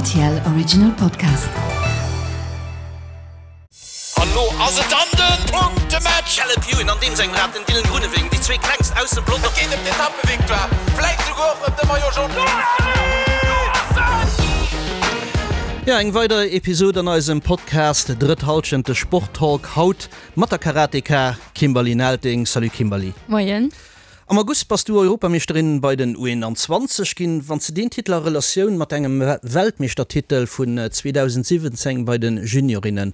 RTL Original Podcast. An lo ass et dann den Punktematch! Caleb Ewan an deem sengem Rad, den Dylan Groenewegen, déi zwee klengst aus dem Pelotong. Et geet ëm d'Etappevictoire, vläit souguer och ëm de Maillot Jaune. Jo, eng weider Episod an eisem Podcast Drëtt Halschent, de Sporttalk, haut mat der Karateka Kimberly Nelting. Salut Kimberly. Moien. Am August bass du Europameeschterin bei den U21 ginn. Wann s de deen Titel a Relatioun mat engem Weltmeeschtertitel vun 2017 bei de Juniorinnen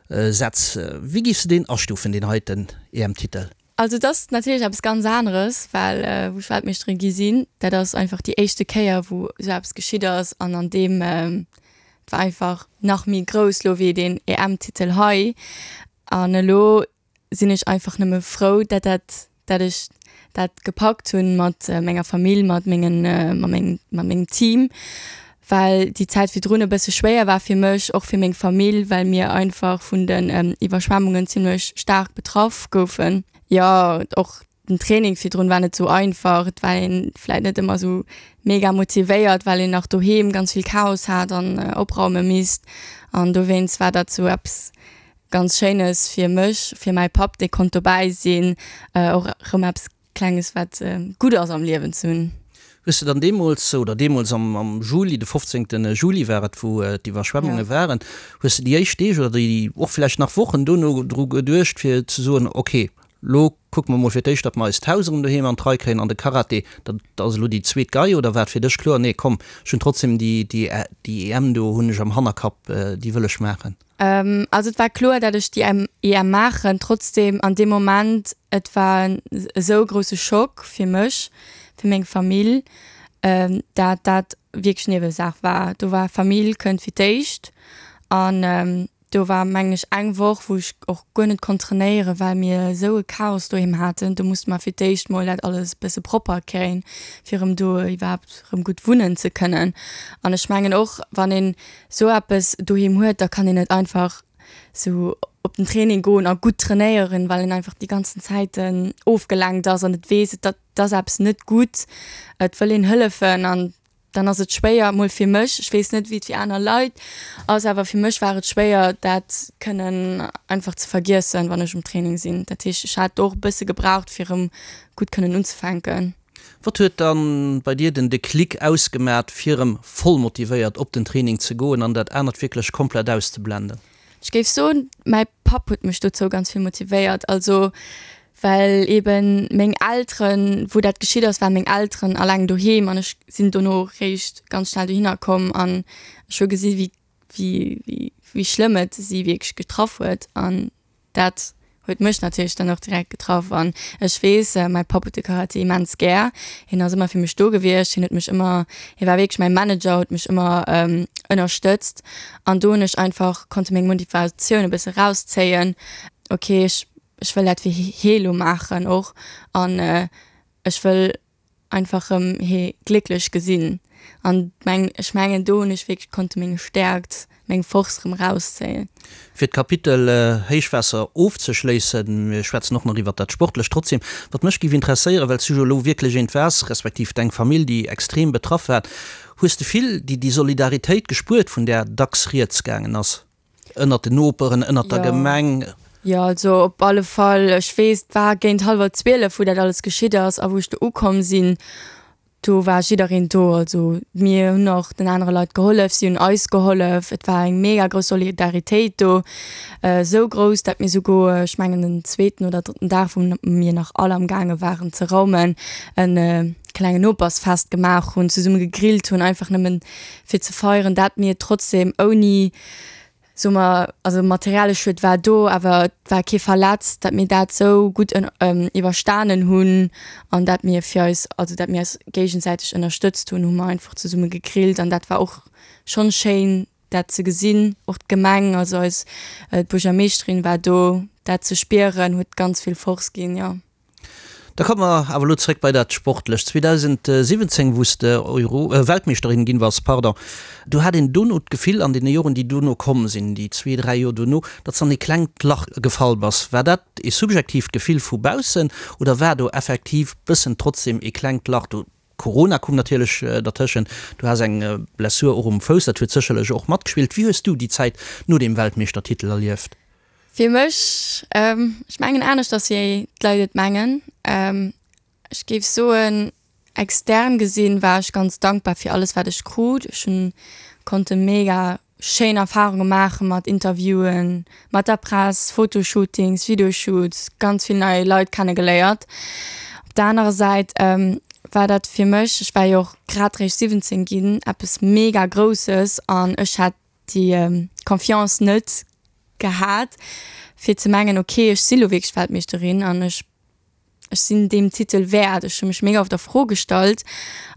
setz, wéi giffs de deen astufen, deen heiten EM-Titel? Also et ass natierlech eppes ganz aneres, well wou ech Weltmeeschterin gi sinn, dat ass einfach déi éischte Kéier wou esou eppes geschitt ass an an deem, et war einfach nach méi grouss lo wéi deen EM-Titel hei. An elo sinn ech einfach nëmme frou, dat dat, dat ech dat gepackt hunn mat menger Famill, mat mengen, mat mengem, mat mengem Team, well déi Zäit virdrun e bësse schwéier war fir mech, och fir meng Famill, well mir einfach vun den Iwwerschwemmungen zimlech staark betraff goufen. Jo, och den Training virdrun war net sou einfach, et war een vläit net ëmmer sou mega motivéiert, well een nach doheem ganz vill Chaos hat an opraume misst an dowéinst war dat sou eppes ganz Schéines fir mech, fir mäi Papp, dee konnt dobäi sinn, och erëm eppes Klenges wat gutt ass am Liewen ze hunn. Hues de dann deemools, oder deemools am Juli, de 15 Juli war et, wou d'Iwwerschwemmunge waren, hues de déi éischt Deeg oder déi och vläicht nach Wochen dono dru geduecht fir ze soen, ok, lo kucke mer mol fir d'éischt, datt mer eist Haus erëm doheem an d'Rei kréien an de Karate, dat ass elo déi zweet Gei, oder war et fir dech kloer, nee komm, ech hunn trotzdem déi EM do hunn ech am Hannerkapp, déi wëll ech maachen? Also et war kloer, dat ech déi EM maachen. Trotzdem an deem Moment, et war en esou grousse Schock fir mech, fir meng Famill, dat dat wierklech Niewesaach war. Do war Famill kënnt fir d'éischt an do war mengen ech eng Woch, wou ech och guer net konnt trainéieren, well mir esou e Chaos doheem haten. Do musste mer fir d'éischt mol dat alles e bësse propper kréien, fir erëm do iwwerhaapt erëm gutt wunnen ze kënnen. An ech mengen och, wann een sou eppes doheem huet, da kann een net einfach sou op den Training goen a gutt trainéieren, well een einfach déi ganzen Zäiten ofgelenkt ass an et weess, et ass eppes net gutt, et wëll een hëllefen an dann ass et schwéier, mol fir mech, ech weess net wéi et fir aner Leit ass, awer fir mech war et schwéier dat kënnen einfach ze vergiessen, wann ech um Training sinn. Dat heescht, ech hat och e bësse gebraucht fir erëm gutt kënnen unzefänken. Wat huet dann bei dir den Déclic ausgemat fir erëm voll motivéiert op den Training ze goen an dat anert wierklech komplett auszeblenden? Ech géif soen, mäi Papp huet mech dozou ganz vill motivéiert. Also well eben meng Elteren, wou dat geschitt ass, waren meng Elteren alleng doheem an ech sinn dono réischt ganz schnell dohinner komm an ech hu gesi wéi wéi wéi schlëmm et si wierklech getraff huet an Dat huet mech natierlech dann och direkt getraff an ech weess, mäi Papp huet de Karate immens gär. Hien ass ëmmer fir mech do gewiescht, hien huet mech ëmmer, hie war wierklech mäi Manager, huet mech ëmmer ënnerstëtzt an do hunn ech einfach konnte meng Motivatioun e bësse rauszéien, ok ech ech wëll dat fir hie lo maachen och an ech wëll einfach rëm hee glécklech gesinn an meng ech mengen do hunn ech wierklech konnte meng Stäerkt, meng Force rëm rauszéien. Fir d'Kapitel Héichwaasser ofzeschléissen, mir schwätzen och nach iwwert dat Sportlecht, trotzdem, wat mech géif interesséieren, well s du jo elo wierklech eent waars, respektiv deng Famill, déi extrem betraff war, hues de vill déi déi Solidaritéit gespuert, vun där dacks rieds gaangen ass? Ënnert den Noperen, ënnert der Gemeng? Jo, also op alle Fall. Ech weess, et war géint hallwer 12, wou dat alles geschitt ass a wou ech do ukomm sinn, do war jiddereen do. Also mir hunn och den anere Leit gehollef, si hunn eis gehollef. Et war eng mega grouss Solidaritéit do, esou grouss, dat mir souguer, ech mengen den zweeten oder drëtten Dag, wou mir nach all am gaange waren ze raumen, e klengen Nopersfest gemaach hunn, zesumme gegrillt hunn, einfach nëmmen fir ze feieren, dat mir trotzdem ouni soe mer, also materielle Schued war do, awer et war kee verletzt, dat mir dat sou gutt iwwerstanen hunn an dat mir fir eis, also dat mir eis géigesäiteg ënnerstëtzt hunn, hu mer einfach zesumme gegrillt an dat war och schonn schéin dat ze gesinn. Och d'Gemeng, also eis d'Buergermeeschterin war do, dat ze spieren huet ganz vill Force ginn, jo. Da komme mer awer elo zréck bei dat Sportlecht. 2017, wou s de Euro, Weltmeeschterin ginn bass, pardon, do hat een dono d'Gefill, an deene Joren, déi dono komm sinn, déi zwee, dräi Joer dono, datt s an ee klengt Lach gefall bass. War dat ee subjektiivt Gefill vu baussen oder war do effektiv bëssen trotzdem ee klengt Lach do? Corona koum natierlech dertëschent, du has eng Blessur och um Fouss, dat huet sécherlech och matgespillt. Wéi hues du déi Zäit no deem Weltmeeschtertitel erlieft? Fir mech, ech mengen aneschters wéi d'Leit et mengen. Ech géif soen, extern gesinn war ech ganz dankbar fir alles wat ech krut. Ech hunn konnte mega schéin Erfarunge maache mat Interviewen, mat der Press, Fotoshootings, Videoshoots, ganz vill nei Leit kenne geléiert. Op der anerer Säit war dat fir mech, ech war jo och grad réischt 17 ginn, eppes mega Grousses an ech hat déi Confiance net gehat fir ze mengen, ok ech si lo wierklech Weltmeeschterin an ech ech sinn deem Titel wäert. Ech hu mech mega oft a Fro gestallt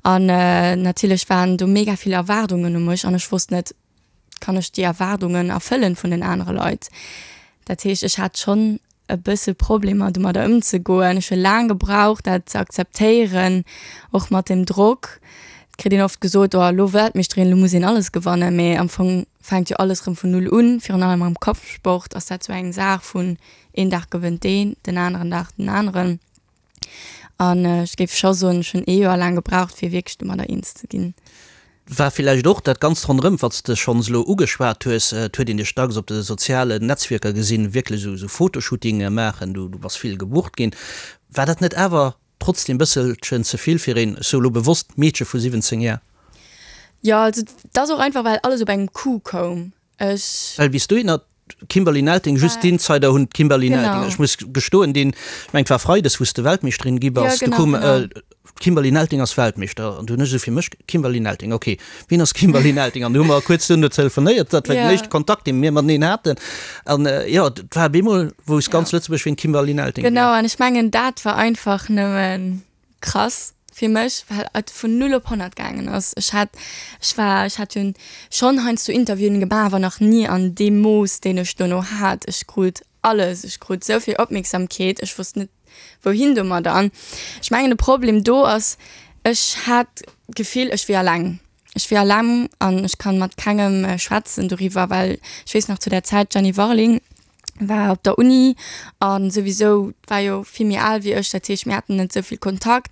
an natierlech waren do mega vill Erwaardungen u mech an ech wosst net, kann ech déi Erwaardungen erfëllen vun den anere Leit? Dat heescht, ech hat schonn e bësse Problemer domadder ëmzegoen. Ech hu laang gebraucht dat ze akzeptéieren, och mat dem Drock. Et kritt een oft gesot, oh elo Weltmeeschterin, elo muss een alles gewannen, mee am Fong fänkt jo alles erëm vun Null un. Virun allem am Kampfsport ass dat sou eng Saach vun Een Dag gewënnt deen, den aneren Dag den aneren. An ech géif scho soen, ech hunn ee Joer laang gebraucht, fir wierklech domadder eens ze ginn. War villäicht och dat Ganzt ronderëm, wat s de schonns elo ugeschwat hues. Et huet een dech dacks op de sozialen Netzwierker gesinn, wierklech esou Fotoshootinge maachen, du bass vill gebucht ginn. War dat net awer trotzdem bësselchen ze vill fir een, ech soe lo bewosst, Meedche vu 17 Jar? Jo, also et ass och einfach, well alles op engem Coup koum. Ech. Well bis dohinner d'Kimberly Nelting, just d'Insider hunn d'Kimberly Nelting, ech muss gestoen, deen, ech mengen et war Freides wou s de Weltmeeschterin gi bass, du koum d'Kimberly Nelting ass Weltmeeschter an du hunn ech esou fir mech, Kimberly Nelting, ok, wien ass Kimberly Nelting? An du hu mer kuerz duerno telefonéiert, dat war den éischte Kontakt dee mir mateneen haten an jo, et war op eemol wousst ganz Lëtzebuerg wien d'Kimberly Nelting wier. Genau, an ech mengen dat war einfach nëmmen krass fir mech, well et vun 0 op 100 gaangen ass. Ech hat, ech war, ech hat jo schonn heiansdo Interviewen gemaach, awer nach ni an deem Mooss, deen ech dono hat. Ech krut alles, ech krut esou vill Opmierksamkeet, ech wosst net wouhin domadder. An ech mengen de Problem do ass, ech hat d'Gefill, ech wier alleng. Ech wier alleng an ech kann mat kengem schwätzen doriwwer, well ech weess nach zu där Zäit, d'Jenny Warling, war op der Uni an souwisou war jo vill méi al wéi ech, dat heescht mir haten net esou vill Kontakt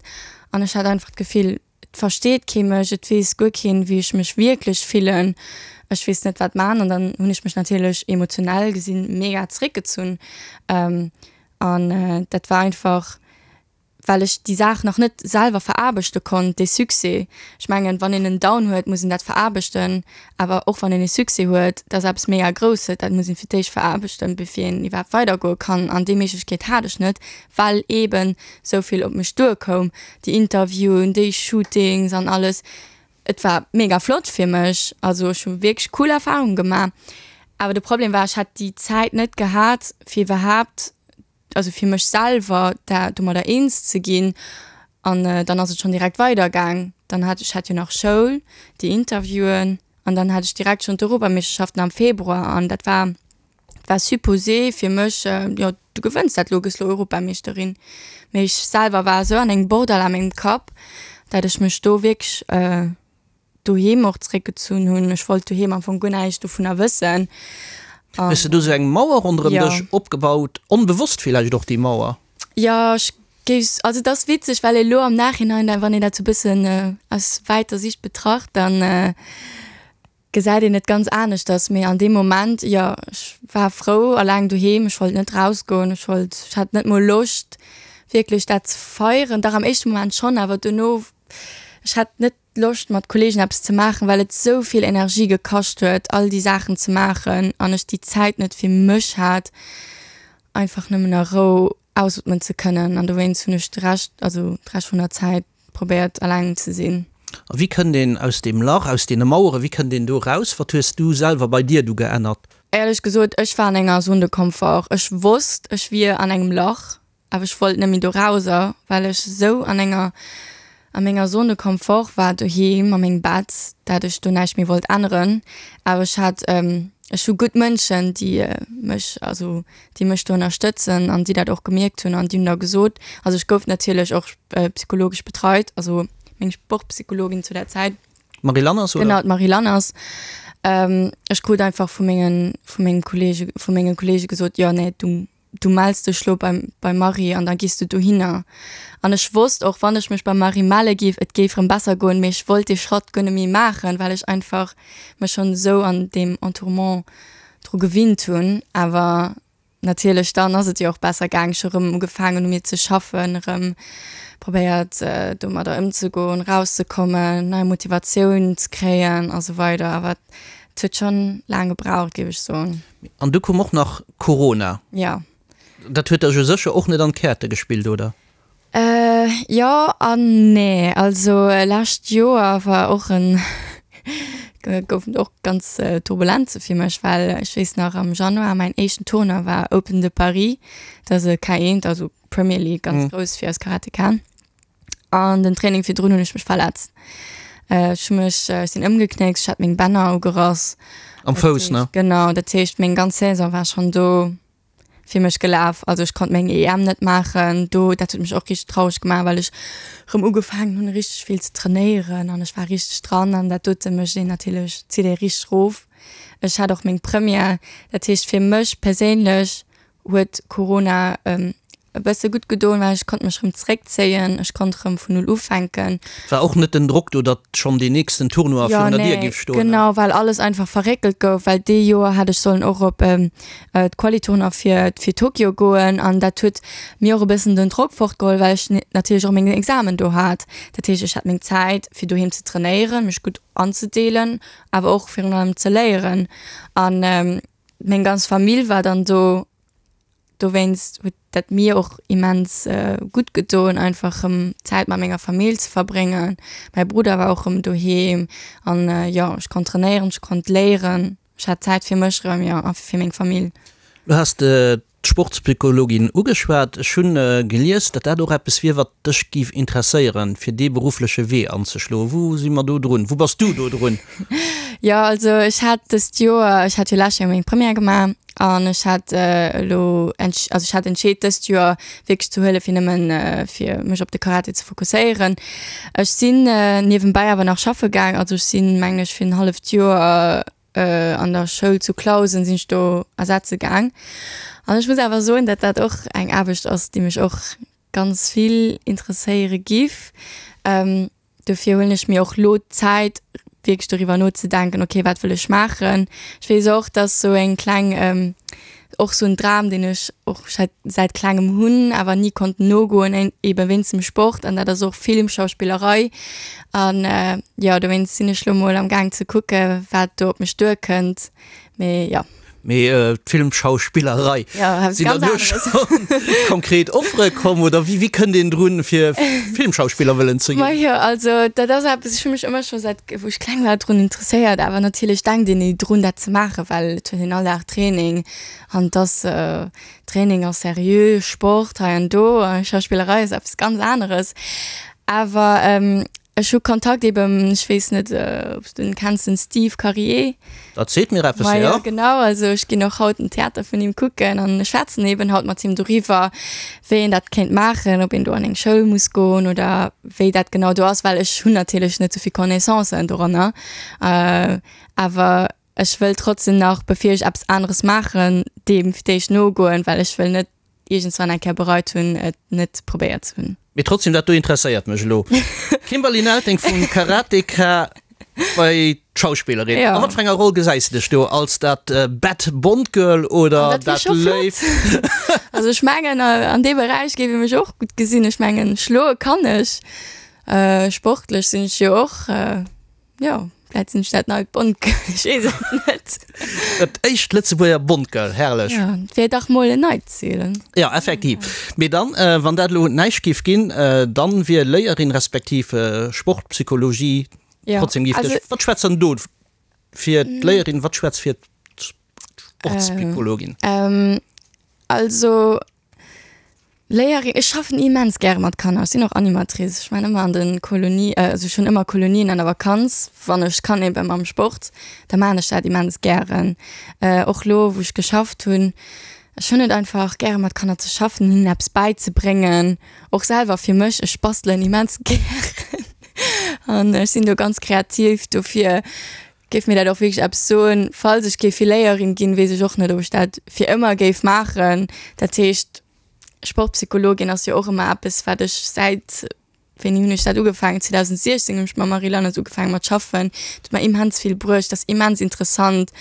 an ech hat einfach d'Gefill, et versteet kee mech, et weess guer keen, wéi ech mech wierklech fillen, ech weess net wat man an dann hunn ech mech natierlech emotionell gesinn mega zeréckgezunn an dat war einfach well ech déi Saach nach net selwer veraarbechte konnt, dee Succès. Ech mengen, wann een en Down huet, muss een dat veraarbechten, awer och wann een e Succès huet, dat ass eppes mega Grousses, dat muss een fir d'éischt veraarbechten, bevir een iwwerhaapt weidergoe kann. An déi Méiglechkeet hat ech net, well eeben esou vill op mech duerkoum, déi Interviewen, déi Shootings an alles. Et war mega flott fir mech, also ech hu wierklech cool Erfarunge gemaach, awer de Problem war, ech hat déi Zäit net gehat, fir iwwerhaapt also fir mech selwer da domadder eens ze ginn an dann ass et schonn direkt weider gaang. Dann hat ech hat jo nach Schoul, déi Interviewen an dann hat ech direkt schonn d'Europameeschterschaften am Februar an dat war war supposé fir mech, jo du gewënns dat lo, gëss lo Europameeschterin. Mee ech selwer war esou an engem Bordell a mengem Kapp, dat ech mech do wierklech doheem och zréckgezunn hunn. Ech wollt doheem am Fong guer näischt dovunner wëssen. Hues de do sou eng Mauer ronderëm dech opgebaut, onbewosst villäicht och déi Mauer? Jo, ech géif, also et ass witzeg, well elo am Nachhinein, wann een dat sou bëssen aus wäiter Sicht betracht, dann gesäit een et ganz aneschters. Mee an deem Moment, jo, ech war frou alleng doheem, ech wollt net rausgoen, ech wollt, ech hat net mol Loscht wierklech dat ze feieren. Dach am éischte Moment schonn, awer dono, ech hat net Loscht mat Kollegen eppes ze maachen, well et sou vill Energie gekascht huet all déi Saachen ze maachen an ech déi Zäit net fir mech hat einfach nëmmen a Rou ausootmen ze kënnen an dowéinst hunn ech de Rescht, also de Rescht vun der Zäit probéiert alleng ze sinn. A wéi kënnt een aus deem Lach, aus deene Maueren, wéi kënnt een do raus? Wat hues du selwer bei dir du geännert? Éierlech gesot, ech war an enger Zone de confort. Ech wosst ech wier an engem Lach Awer ech wollt net méi do rauser, well ech esou an enger, a menger Zone de confort war doheem a mengem Bett, dat ech do näischt méi wollt änneren. Awer ech hat, ech hu gutt Mënschen, déi mech, also déi mech do ënnerstëtzen an déi dat och gemierkt hunn an déi hunn da gesot, also ech gouf natierlech och psychologesch betreit, also meng Sportpsychologin zu der Zäit. D'Marie Lanners, oder? Genau, d'Marie Lanners. Ech krut einfach vu mengen, vu mengem Kollege, vu menge Kollege gesot, jo nee, du. Du mells dech lo beim beim Marie an da gees du dohinner. An ech wosst och, wann ech mech beim Marie melle géif, et géif rëm besser goen, mee ech wollt dee Schratt guer net méi maachen, well ech einfach mech schonn esou an deem Entourement dru gewinnt hunn. Awer natierlech, dann ass et jo och besser gaang. Ech hu rëm ugefaangen u mir ze schaffen, rëm probéiert domadder ëmzegoen, rauszekommen, nei Motivatioun ze kréien a sou weider. Awer et huet schonn laang gebraucht, géif ech soen. An du koum och nach Corona. Jo. Dat huet der jo sécher och net an d'Käerte gespillt, oder? Jo an nee. Also lescht Joer war och en, goufen och ganz Turbulenze fir mech, well ech weess nach am Januar mäin éischten Tournoi war Open de Paris, dat ass e K1, also Premier League, ganz grouss fir eis Karatekaen. An den Training virdrun hunn ech mech verletzt. Ech hu mech, ech sinn ëmgeknéckt, ech hat meng Bänner ugerass. Am Fouss, ne? Genau, dat heescht meng ganz Saison war schonn do fir mech gelaf. Also ech konnt meng EM net maachen do. Dat huet mech och richteg traureg gemaach, well ech rëm ugefaangen hunn richteg vill ze trainéieren an ech war richteg dran an dat dote mécht een natierlech, zitt ee richteg rof. Ech hat och meng Première, dat heescht fir mech perséinlech huet Corona e bësse gutt gedoen, well ech konnt mech rëm zréckzéien, ech konnt rëm vun null ufänken. War och net den Drock do, datt schonn deen nächsten Tournoi virun der Dier géif stoen? Genau, well alles einfach verréckelt gouf, well dee Joer hätt ech sollen och op d'Quali-Tournoi fir fir Tokio goen an dat huet mir och e bëssen den Drock fortgeholl, well ech natierlech och meng Examen do hat. Dat heescht, ech hat meng Zäit fir doheem ze trainéieren, mech gutt anzedeelen, awer och virun allem ze léieren an Meng ganz Famill war dann do, dowéinst huet dat mir och immens gutt gedoen, einfach rëm Zäit mat menger Famill ze verbréngen. Mäi Brudder war och rëm doheem an jo, ech konnt trainéieren, ech konnt léieren, ech hat Zäit fir mech rëm, jo, a fir meng Famill. Du has d'Sportspsychologin ugeschwat. Ech hunn gelies, datt dat och eppes wier, wat dech géif interesséieren, fir dee beruffleche Wee anzeschloen. Wou si mer do drun? Wou bass du do drun? Jo, also ech hat dëst Joer, ech hat jo lescht Joer meng Première gemaach an ech hat elo, also ech hat entscheet dëst Joer wierklech ze huelen, fir nëmmen fir mech op de Karate ze fokusséieren. Ech sinn niewenbäi awer nach schaffe gaang, also ech sinn, mengen ech, fir en halleft Joer an der Schoul zu Clausen sinn ech do ersetze gaang. An ech muss awer soen, datt dat och eng Aarbecht ass, déi mech och ganz vill interesséiere giff. Dofir huelen ech mir och lo d'Zäit, wierklech doriwwer nozedenken, okay, wat wëll ech maachen. Ech weess och, dass sou eng kleng, och sou en Dram, deen ech och säit säit klengem hunn, awer ni konnt nogoen, ebe wéinst dem Sport, an dat ass och Film, Schauspillerei. An jo, dowéinst sinn ech lo mol am Gaang ze kucke wat do op mech duerkënnt. Mee jo. Mee d'Filmschauspillerei, sinn der do schonn konkret Offere komm oder wéi wéi kënnt een drun fir Filmschauspiller wëllen ze ginn? Majo, also dat ass eppes, ech hu mech ëmmer scho säit wou ech kleng war drun interesséiert, awer natierlech denkt een ni drun dat ze maachen, well et huet een all Dag Training an et ass Training ass seriö, Sport hei an do, Schauspillerei ass eppes ganz aneres. Awer Ech hu Kontakt eben, ech weess net ob s du en kenns, den Steve Karier. Dat seet mir eppes, jo. Majo, genau, also ech ginn och haut den Theater vun him kucken an ech schwätzen eben haut mat him doriwwer, wéi een dat kéint maachen, ob een do an eng Schoul muss goen oder wéi dat genau do ass, well ech hunn natierlech net esou vill Connaissancen doranner. Awer ech wëll trotzdem nach, bevir ech eppes aneres maachen, deem fir d'éischt nogoen, well ech wëll net iergendswann eng Kéier bereit hunn, et net probéiert ze hunn. Mee trotzdem, dat do interesséiert mech elo. Kimberly Nelting vum Karateka bei d'Schauspillerin. A wat fir enger Roll gesäis de dech do? Als dat bad Bond Girl oder dat léift? Also ech mengen an deem Beräich géif ee mech och gutt gesinn. Ech mengen schloe kann ech, sportlech sinn ech jo och. Jo, vläit sinn ech dat neit Bond-Girl, ech weess et net. Dat éischt Lëtzebuerger Bond-Girl, herrlech. Jo, et wier dach mol en neit Zil. Jo, effektiv. Mee dann, wann dat elo näischt géif ginn, dann wier Léierin respektiv Sportpsychologie trotzdem géif dech. Wat schwätzt dann do fir d'Léierin, wat schwätzt fir d'Sportspsychologin? Also Léierin, ech schaffen immens gäre mat Kanner. Ech sinn och Animatrice. Ech maachen ëmmer an de Kolonie, also ech hunn ëmmer Kolonien an der Vakanz, wann ech kann eben mam Sport, da maachen ech dat immens gären. Och lo wou ech geschafft hunn, ech hunn et einfach gäre mat Kanner ze schaffen, hinnen eppes bäizebréngen, och selwer fir mech. Ech bastelen immens gären an ech sinn do ganz kreativ, dofir. Géif mir dat och wierklech eppes soen. Falls ech géif Filéierin ginn, weess ech och net, ob ech dat fir ëmmer géif maachen. Dat heescht, Sportpsychologin ass jo och ëmmer eppes, wat ech säit, wéini hunn ech dat ugefaangen, 2016 hunn ech mam Marie Lanners ugefaangen mat schaffen. Dat huet mer immens vill bruecht, dat ass immens interessant.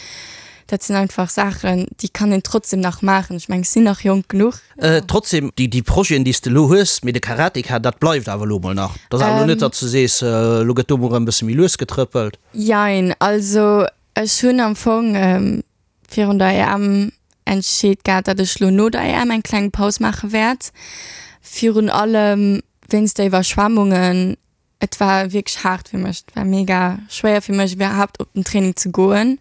Dat sinn einfach Saachen, déi kann een trotzdem nach maachen. Ech mengen, ech sinn nach jonk genuch. Trotzdem, déi Projeten, déi s de elo hues, mee de Karateka, dat bleift awer elo mol nach. Dat ass awer elo net, datt s de sees, elo gëtt do mol erëm e bësse méi lues getrëppelt. Jein, also ech hunn am Fong virun der EM entscheet gehat, datt ech lo no der EM eng kleng Paus maache wäert. Virun allem wéinst der Iwwerschwemmungen. Et war wierklech haart fir mech. Et war mega schwéier fir mech iwwerhaapt op den Training ze goen.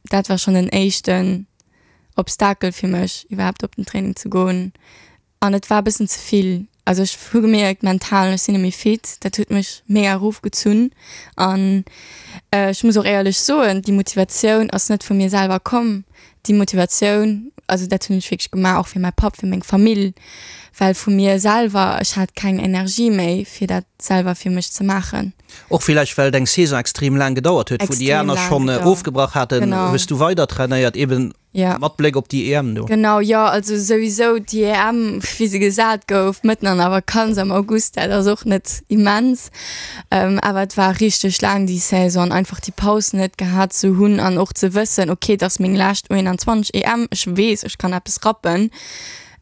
Dat war schonn den éischten Obstakel fir mech, iwwerhaapt op den Training ze goen. An et war e bëssen ze vill. Also ech hu gemierkt, mental, ech sinn net méi fit. Dat huet mech mega erofgezunn. An ech muss och éierlech soen, déi Motivatioun ass net vu mir selwer komm. Déi Motivatioun, also dat hunn ech wierklech gemaach och fir mäi Papp, fir meng Famill, well vu mir selwer, ech hat keng Energie méi fir dat selwer fir mech ze maachen. Och villäicht well deng Saison extrem laang gedauert huet, wou déi aner schonn ofgebrach haten, hues du weider trainéiert, eben mat Bléck op déi EM do. Genau, jo, also souwisou déi EM, wéi se gesat gouf, mëtten an der Vakanz am August, dat ass och net immens. Awer et war richteg laang déi Saison an einfach déi Paus net gehat ze hunn an och ze wëssen, ok, et ass meng lescht U21 EM, ech weess, ech kann eppes rappen,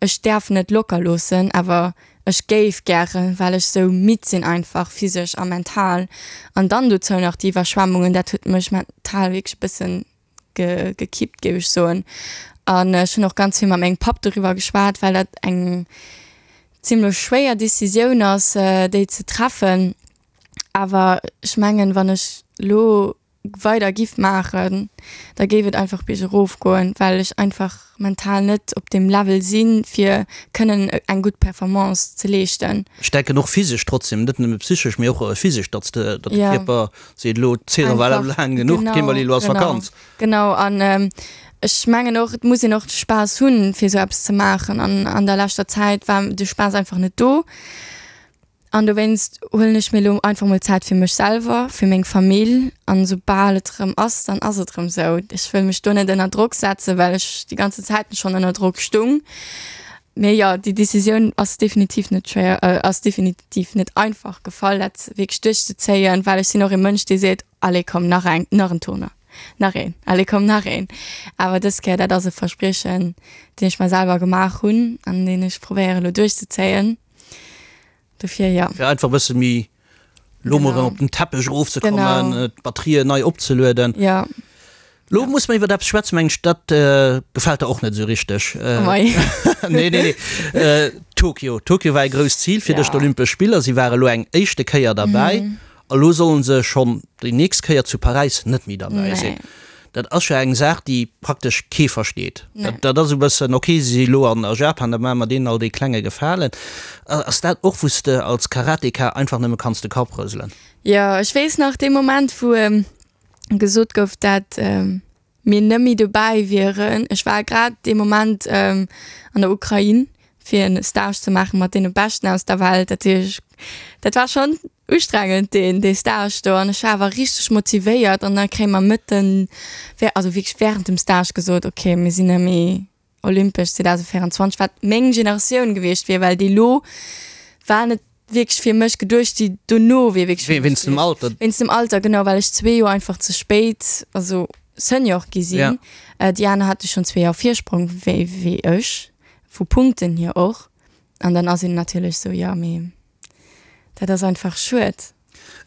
ech däerf net locker loossen, awer ech géif gären, well ech sou midd sinn einfach, physesch a mental. An dann dozou nach déi Iwwerschwemmungen, dat huet mech mental wierklech e bëssen gekippt, géif ech soen. An ech hunn och ganz vill mat mengem Papp doriwwer geschwat, well dat eng zimlech schwéier Decisioun ass, déi ze treffen. Awer ech mengen, wann ech lo weider giff maachen, da géif et einfach biergerof goen, well ech einfach mental net op deem Level sinn, fir kënnen eng gutt Performance ze leeschten. Ech denken och physesch trotzdem, net nëmme psychesch, mee och physesch, datt de Kierper Seet elo, d'Saison war elo laang genuch, d'Kimberly, elo ass Vakanz. Genau, an ech mengen och, et muss een och de Spaass hunn, fir esou eppes ze maachen. An an der leschter Zäit war de Spaass einfach net do. An dowéinst huelen ech mir elo einfach mol Zäit fir mech selwer, fir meng Famill. An esoubal et erëm ass, dann ass et erëm esou. Ech wëll mech do net ënner Drock setzen, well ech déi ganze Zäit schonn ënner Drock stung. Mee jo, déi Decisioun ass definitiv net schwéier, ass definitiv net einfach gefall, dat wierklech duerchzezéien, well ech sinn och ee Mënsch, dee seet, Allez komm, nach eng, nach en Tournoi, nach een, allez komm, nach een. Awer dës Kéier, dat ass e Verspriechen, deen ech mer selwer gemaach hunn an deen ech probéiere elo duerchzezéien. Dofir jo. Fir einfach e bësse méi lo mol erëm op den Teppech erofzekommen, d'Batterien nei opzelueden. Jo. Lo muss mer iwwer eppes schwätzen, mengen ech, dat gefält der och net esou richteg. Oh mei. Nee, nee, nee. Tokio. Tokio war e grousst Zil fir dech, d'Olympesch Spiller. Si ware lo eng éischte Kéier derbäi. A lo sollen se schonn déi nächst Kéier zu Paräis net méi derbäi sinn. Dat ass jo eng Saach, déi praktesch kee versteet. Dat ass e bëssen, ok, si si lo an a Japan, da maache mer deenen all dee klenge Gefalen. Ass dat och, wou s de als Karateka einfach nëmme kanns de Kapp rëselen? Jo, ech weess nach dee Moment, wou gesot gouf, dat mir net méi dobäi wieren. Ech war grad dee Moment an der Ukrain, fir en Stage ze maache mat deene Beschten aus der Welt. Dat heescht, dat war schonn ustrengend deen dee Stage do an ech war awer richteg motivéiert an da kréie mer mëtten, also wierklech wärend dem Stage gesot, okay mir sinn net méi Olympesch 2024, wat meng Generatioun gewiescht wier, well déi lo war net wierklech fir mech geduecht, déi dono wier wierklech fir mech Wéinst dem Alter? Wéinst dem Alter, genau, well ech zwee Joer einfach ze spéit, also Senior gi sinn. Ja. Déi aner hate schonn zwee Joer Virsprong wéi wéi ech, vu Punkten hier och. An dann ass een natierlech sou, jo, mee dat ass einfach schued.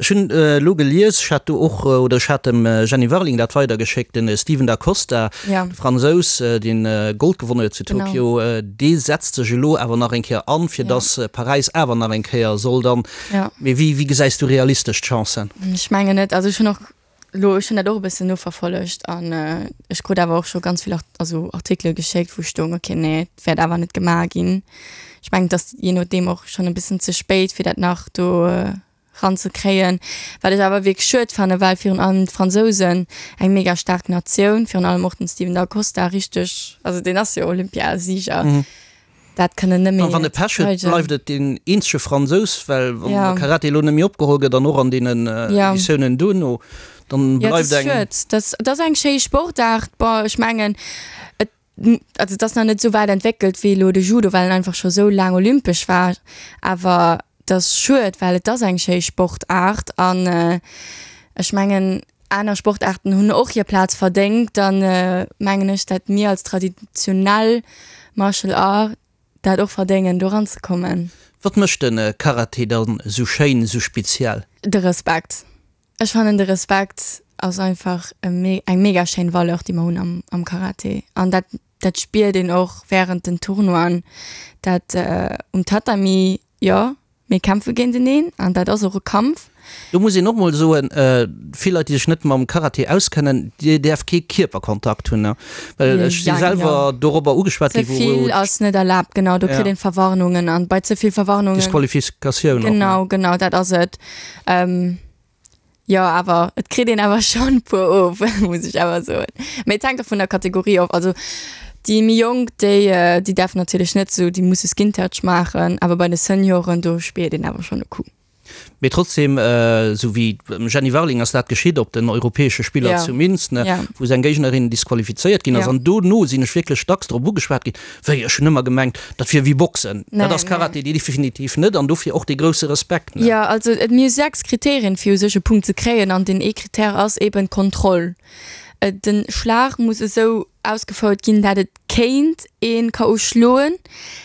Ech hunn elo gelies, ech hat do och, oder ech hat dem Jenny Warling dat weidergeschéckt, de Steven Da Costa, de Fransous, deen Gold gewonnen huet zu Tokio, dee setzt sech elo awer nach eng Kéier an, fir datt Paräis awer nach eng Kéier soll dann. Mee wéi gesäis du realistesch d'Chancen? Ech mengen net. Also ech hunn och elo, ech hunn dat och e bëssen noverfollegt an ech krut awer och scho ganz vill also Artikele geschéckt, wou stoung, okay, nee, et wäert awer net gemaach ginn. Ech mengen, et ass jee nodeem och schonn e bëssen ze spéit, fir dat nach do ranzekréien. Wat ech awer wierklech schued fannen, well virun allem d'Fransousen, eng mega staark Natioun, virun allem och den Steven Da Costa richteg, also deen ass jo Olympiasieger, dat kënnen net méi Wann e Pech huet, bleift et deen eenzege Fransous, well wann de Karate elo net méi opgeholl gëtt an och an deenen Editiounen duerno. Dann bleift eng. Jo, et ass schued. Dat ass eng schéi Sportaart. Bon, ech mengen, et, also et ass nach net esou wäit entwéckelt wéi elo de Judo, well en einfach scho sou laang olympesch war. Awer et ass schued, well et ass eng schéi Sportaart an ech mengen, aner Sportaarten hunn och hir Plaz verdéngt. Dann mengen ech, dat mir als traditionell Martial Art dat och verdéngen, do eranzekommen. Wat mécht de Karate dann esou schéin, esou speziell? De Respekt. Ech fannen de Respekt ass einfach eng mega schéin Valeur déi mer hunn am am Karate an dat dat spiert een och während den Tournoien, dat um Tatami, jo mir kämpfe géinteneen an dat ass och e Kampf. Do muss een och mol soen, vill Leit déi sech net mam Karate auskennen, dir däerft kee Kierperkontakt hunn, well ech si selwer dorobber ugeschwat ginn. Ze vill ass net erlaabt, genau, do kritt een Verwarnungen an bei ze vill Verwarnungen. Disqualifikatioun och. Genau, genau dat ass et. Jo, awer et kritt een awer schonn e puer of, muss ech awer soen. Mee et hänkt och vun der Kategorie of. Also déi méi Jonk, déi, déi däerfen natierlech net esou, déi musse Skin Touch maachen. Awer bei de Senioren, do spiert een awer schonn e Coup. Mee trotzdem, esou wéi dem Jenny Warling ass dat geschitt op den europäesche Spiller zu Minsk, wou seng Géignerin disqualifizéiert ginn ass. An dono sinn ech wierklech dacks drop ugeschwat ginn, Wéi, ech hunn ëmmer gemengt, dat wier wéi Boxen. Dat ass Karate definitiv net an dofir och dee grousse Respekt. Jo, also et mir hu 6 Kriterien, fir u sech e Punkt ze kréien an deen ee Kritär ass eben d'Kontroll. Den Schlag muss esou ausgefouert ginn, dat et kéint een KO schloen,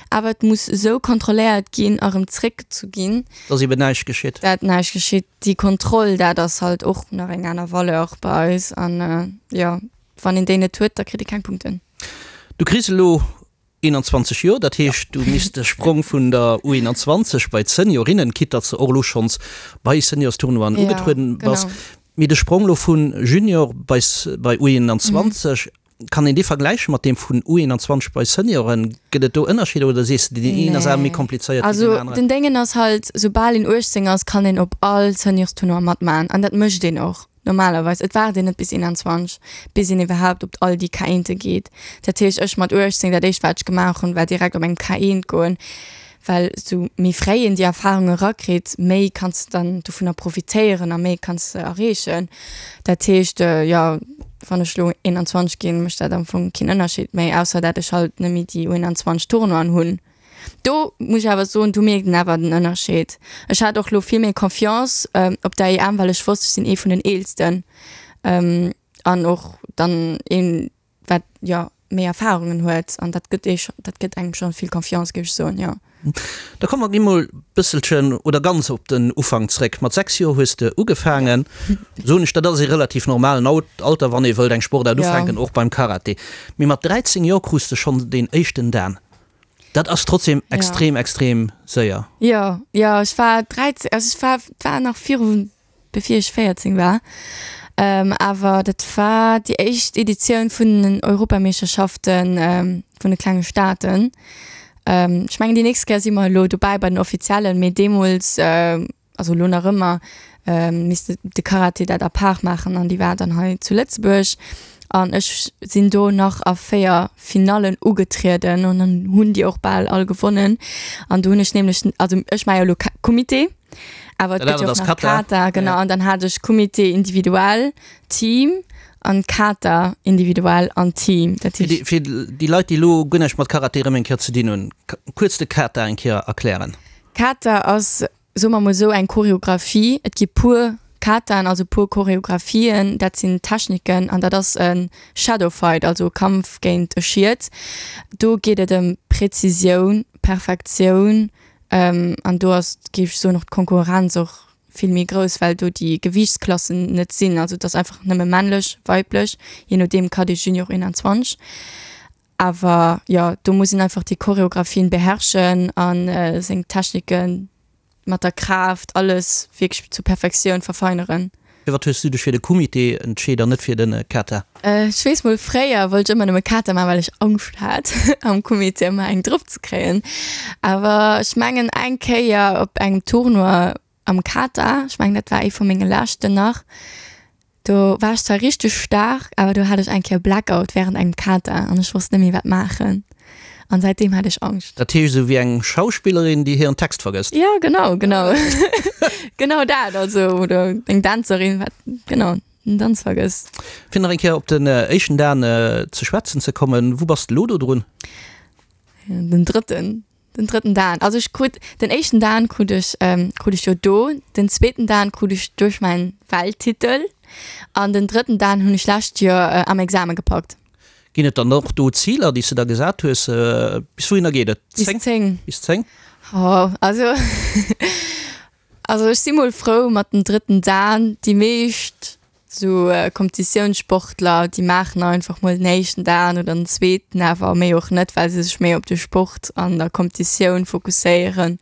awer et muss esou kontrolléiert ginn a rëm zréckgezu ginn. Dass eben näischt geschitt. Dat näischt geschitt. Déi Kontroll, dat ass halt och nach eng aner Valeur bei eis an jo, wann een déi net huet, da kritt ee keng Punkten. Du kriss elo 21 Joer, dat heescht du misst de Sprong vun der U21 bei d'Seniorinnen, quitte datt s de och elo schonns bei Seniorstournoien ugetrueden bass, mee de Sprong elo vu Junior bei bei U21, kann een dee vergläiche mat deem vun U21 bei Senioren? Gëtt et do Ënnerscheeder oder sees de deen een ass awer méi komplizéiert wéi deen aneren? Also den Déngen ass halt, soubal een 18 ass, kann een op all Seniorstournoi matmachen an dat mécht een och. Normalerweis, et waart een net bis 21, bis een iwwerhaapt op all déi K1e geet. Dat heescht, ech mat 18, dat éischt wat ech gemaach hunn, war direkt op engem K1 goen, well sou méi fréi een déi Erfarung erakritt, méi kanns de dann dovunner profitéieren a méi kanns de erreechen. Dat heescht, jo, wann ech elo 21 ginn, mécht dat am Fong keen Ënnerscheed méi, ausser dat ech halt net méi déi U21 Tournoien hunn. Do muss ech awer soen, do mierkt een awer den Ënnerscheed. Ech hat och lo vill méi Confiance op der EM, well ech wosst, ech sinn ee vun den Eelsten an och dann een, wat jo méi Erfarungen huet an dat gëtt ee, dat gëtt engem scho vill Confiance, géif ech soen, jo. Da komme mer emol bësselchen oder ganz op den Ufank zréck. Mat 6 Joer hues de ugefaangen, soen ech, dat ass ee relativ normalen Alter, wann ee wëllt eng Sportaart ufänken, och beim Karate. Mee mat 13 Joer krus de schonn deen éischten Dan. Dat ass trotzdem extrem, extrem séier. Jo, jo, ech war 13, also ech war, war nach viru, bevir ech 14 war. Awer dat war déi éischt Editioun vun den Europameeschterschaften vun de klenge Staaten. Ech mengen déi nächst Kéier si mer elo dobäi bei den offiziellen, mee deemools, also elo nach ëmmer, misst de Karate dat à part maachen an déi war dann hei zu Lëtzebuerg an ech sinn do nach a 4 Finallen ugetrieden an dann hunn déi och bal all gewonnen an do hunn ech nämlech, also ech maache jo elo Kumite, awer et gëtt jo och nach Kata, genau, an dann hat ech Kumite individuell, Team an Kata individuell an Team. Dat heescht. Fir déi Leit, déi elo guer näischt mat Karate erëm eng Kéier ze dinn hunn, kuerz de Kata eng Kéier erklären. Kata ass, soe mer mol esou, eng Choreographie. Et gi puer Kataen, also puer Choreographien, dat sinn Techniken an dat ass e Shadow Fight, also e Kampf géint e Schiet. Do geet et ëm Präzisioun, Perfektioun an do ass, géif ech soen, och d'Konkurrenz och vill méi grouss, well do déi Gewiichtsklassen net sinn. Also et ass einfach nëmme männlech, weiblech, jee nodeem Cadet, Junior, 21. Awer jo, do muss een einfach déi Choreographien beherrschen a seng Techniken mat der Kraaft, alles wierklech zur Perfektioun verfeineren. Firwat hues du dech fir de Kumite entscheet an net fir de Kata? Ech weess mol, fréier wollt ech ëmmer nëmme Kata maachen, well ech Angscht hat am Kumite ëmmer eng drop ze kréien. Awer ech mengen eng Kéier op engem Tournoi am Kata, ech mengen dat war ee vu menge leschten nach, do war ech zwar richteg staark, awer do hat ech eng Kéier Blackout während engem Kata an ech wosst net méi wat maachen an säitdeem hat ech Angscht. Dat heescht esou wéi eng Schauspillerin déi hiren Text vergësst? Jo genau, genau, genau dat, also oder eng Dänzerin, wat genau. den Danz vergësst. Fir nach eng Kéier op den éischten Dan ze schwätzen ze kommen, wou bass de elo do drun? Den drëtten, den drëtten Dan. Also ech krut, den éischten Dan krut ech, krut ech jo do, den zweeten Dan krut ech duerch mäin Welttitel an den drëtten Dan hunn ech lescht Joer am Exame gepackt. Ginn et dann och do Ziler, déi s de der gesat hues? Bis wouhinner geet et? Bis 10. Bis 10? Oh, also, also ech si mol frou mat dem drëtten Dan. Déi meescht sou Competitiounssportler, déi maachen einfach mol den éischten Dan oder den zweeten, awer méi och net, well se sech méi op de Sport an der Competitioun fokusséieren.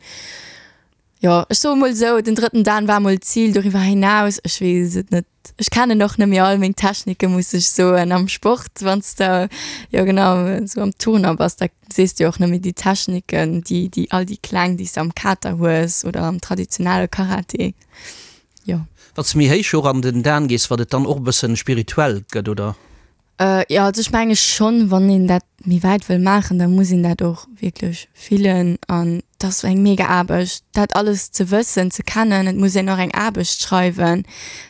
Jo, ech soe mol sou, den drëtten Dan war mol d'Zil, doriwwer hinaus, ech weess et net. Ech kennen och net méi all meng Techniken, muss ech soen. Am Sport, wann s de, jo genau, esou am Turner bass, da sees de jo och net méi déi Techniken, déi, déi all déi kleng, déi s de am Kata hues oder am traditionelle Karate, jo. Wann s de méi héich och an den Dan gees, wat et dann och e bëssen spirituell gëtt, oder? Jo, also ech menge schonn, wann een dat méi wäit wëll maachen, da muss een dat och wierklech fillen an et ass eng mega Aarbecht, dat alles ze wëssen, ze kennen. Et muss een och eng Aarbecht schreiwen,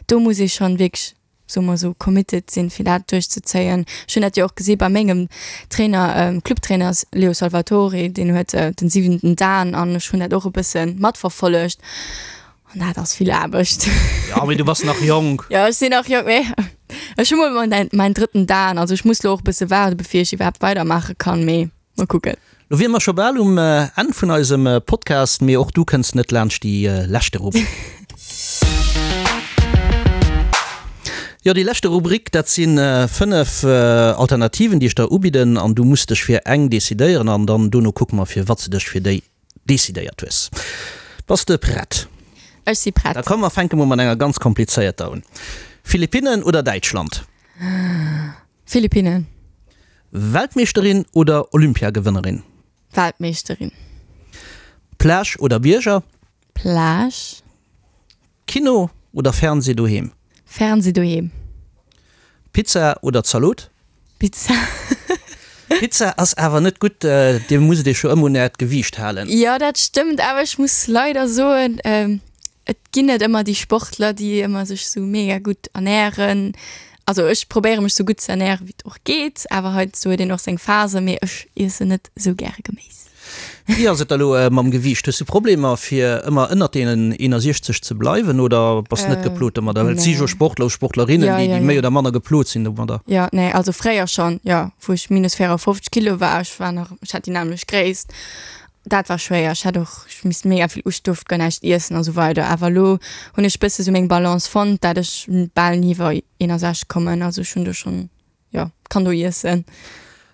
do muss ee schonn wierklech, soe mer esou, committed sinn, fir dat duerchzezéien. Ech hunn dat jo och gesi bei mengem Trainer, Clubtrainer Leo Salvatore, deen huet den siwenten Dan an ech hunn dat och e bësse matverfollegt An dat ass vill Aarbecht. Ja, mee du bass nach jonk. Ja, ech sinn nach jonk, mee ech hu mol mäin, mäin drëtten Dan. Also ech muss lo och e bësse waarde bevir ech iwwerhaapt weidermaache kann, mee mol kucken. Lo wiere mer scho bal um Enn vun eisem Podcast, mee och du kënns net laanscht déi leschte Rubrik. Jo, déi leschte Rubrik, dat si 5 Alternativen, déi ech der ubidden an du muss dech fir eng decidéieren an dann dono kucke mer, firwat s de dech fir déi Decidéiert hues. Bass de prett? Ech si prett. Da komm mer fänke mol mat enger ganz komplizéierter un. Philippinnen oder Däitschland? Philippinnen. Weltmeeschterin oder Olympiagewënnerin? Weltmeeschterin. Plage oder Bierger? Plage. Kino oder Fernseh doheem? Fernseh doheem. Pizza oder Zalot? Pizza. Pizza ass awer net gutt, dir musst iech jo ëmmer un äert Gewiicht halen. Jo dat stëmmt, awer ech muss leider soen, et ginn net ëmmer déi Sportler déi ëmmer sech sou mega gutt ernären. Also ech probéiere mech sou gutt ze ernären wéi et och geet, awer heiansdo huet een och seng Phasen, mee ech iessen net sou gäre Geméis. Wéi ass et da lo mam Gewiicht? Hues du Problemer fir ëmmer ënnert deenen 61 ze bleiwen oder bass net geplot domadder? Well et si jo Sportler, Sportlerinnen, déi déi méi oder manner geplot sinn domadder. Jo, nee, also fréier schonn, jo, wou ech minus 54 Kilo war, ech war nach, ech hat déi nämmlecht Gréisst, dat war schwéier. Ech hat och, ech misst mega vill ech duerft guer näischt iessen a sou weider. Awer elo hunn ech bësse sou meng Balance fonnt, dat ech bal ni iwwer 61 kommen. Also ech hunn do schonn Jo, kann do iessen.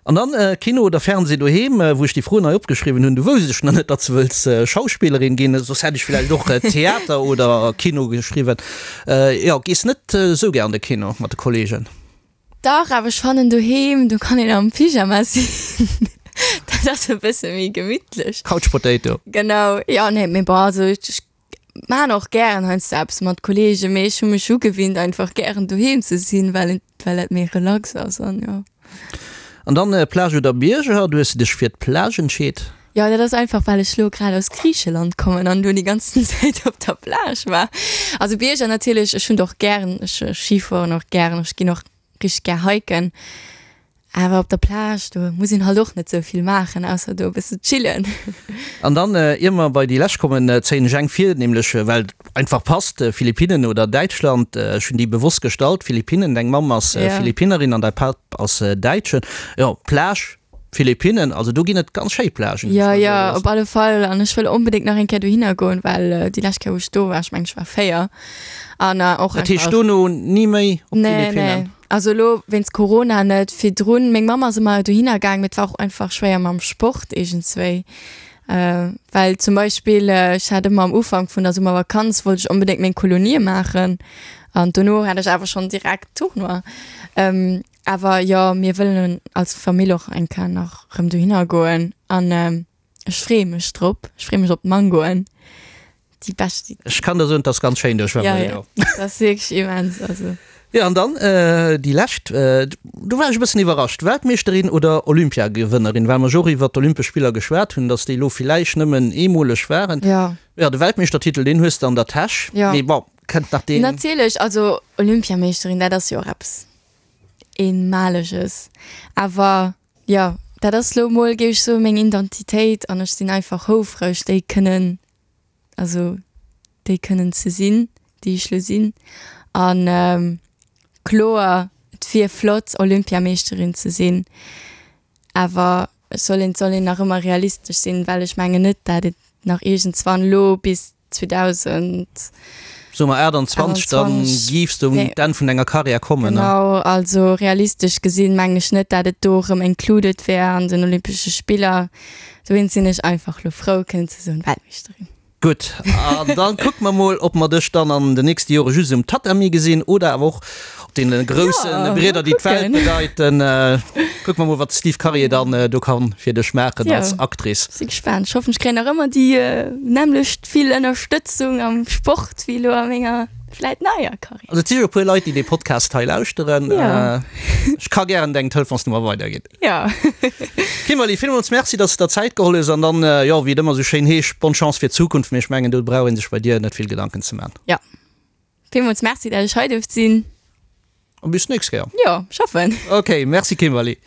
An dann Kino oder Fernseh doheem? Wou ech déi Froen hei opgeschriwwen hunn, du wousst ech nach net, datt s de wëlls Schauspillerin ginn, soss hätt ech villäicht och Theater oder Kino geschriwwen. Jo, gees net esou gär an de Kino mat de Kollegen? Dach, awer ech fannen doheem, do kann een am Pyjama sinn, dat ass e bësse méi gemittlech. Couch Potato. Genau, jo, nee, mee bon, also ech Maan och gären heiansdo eppes mat Kollegen, mee ech hu mech ugewinnt einfach gären doheem ze sinn, well et well dat méi relax ass an jo. An dann Plage oder Bierger? Du hues dech fir d'Plage entscheet? Jo, dat ass einfach well ech lo grad aus Griicheland kommen an do déi ganzen Zäit op der Plage war. Also Bierger natierlech, ech hunn et och gären, ech Skifueren och gären, ech ginn och richteg gär hiken. Awer op der Plage, do muss een halt och net sou vill maachen, ausser do e bësse chillen. An dann, ier mer bei déi lescht kommen, zéien ech eng vir, nämlech well et einfach passt, Philippinnen oder Däitschland. Ech hunn déi bewosst gestallt, Philippinnen, deng Mamm ass Philippinnerin an däi Papp ass Däitschen. Jo, Plage, Philippinnen, also do ginn et ganz schéi Plagen. Jo, jo, op alle Fall. An ech wëll onbedéngt nach eng Kéier dohinner goen, well déi lescht Kéier, wou ech do war, ech mengen, ech war 4, an och Dat heescht dono ni méi op d'Philippinnen? Nee, nee. Also elo wéinst Corona net. Virdrun, meng Mamm ass ëmmer dohinner gaang, mee et war och einfach schwéier mam Sport iergendswéi. Well zum Beispill ech hat ëmmer am Ufank vun der Summervakanz wollt ech onbedéngt meng Kolonie maachen an dono hat ech awer schonn direkt Tournoi. Awer jo, mir wëllen als Famill och eng Kéier nach rëm dohinner goen an ech freeë mech drop. Ech freeë mech op d'Mangoen, déi bescht. Ech kann der soen, et ass ganz schéin do, ech war mol do. Jo, dat ass wierklech immens, also. Jo, an dann déi lescht, do war ech e bëssen iwwerrascht, Weltmeeschterin oder Olympiagewënnerin, well mer jo och iwwert d'Olympesch Spiller geschwat hunn, datt déi elo villäicht nëmmen eemoleg waren. Jo. Jo, de Weltmeeschtertitel, deen hues de an der Täsch, mee bon. Kënnt nach deen. Natierlech, also Olympiameeschterin, dat ass jo och eppes Eenmaleges. Awer jo, dat ass lo mol, géif ech soen, meng Identitéit an ech sinn einfach houfreg, déi kënnen, also déi kënnen ze sinn, déi ech lo sinn. An kloer, et wier flott, Olympiameeschterin ze sinn, awer et soll een, et soll een nach ëmmer realistesch sinn, well ech mengen net, dat et nach iergendswann lo bis 2000. Soe mer 28, dann giffs de un d'Enn vun denger Karriär kommen. Genau, also realistesch gesinn mengen ech net, dat et do erëm included wär an den Olympesche Spiller. Dowéinst sinn ech einfach lo frou kënnen ze soen, Weltmeeschterin. Gutt, an dann kucke mer mol, ob mer dech dann an den nächste Jore just um Tatami gesinn oder awer och op deene grousse Brieder, déi d'Welt bedeiten. Kucke mer mol, wat de Steve Karier dann do kann fir dech maachen als Actrice. Si gespaant. Ech hoffen, ech kréien nach ëmmer déi nämmlecht vill Ënnerstëtzung am Sport wéi elo a menger vläit neier Karriär. Also et si jo e puer Leit, déi dee Podcast hei lauschteren. Ech ka gären deng Telefonsnummer weiderginn. Jo. Kimberly, villmools Merci, dass de der Zäit geholl hues an dann, jo, wéi et ëmmer esou schéin heescht, bonne Chance fir d'Zukunft. Mee ech mengen, do brauch ee sech bei dir net vill Gedanken ze man. Jo. Villmools Merci, dat ech hei duerft sinn. An bis d'nächst Kéier. Jo, ech hoffen. Ok, merci Kimberly.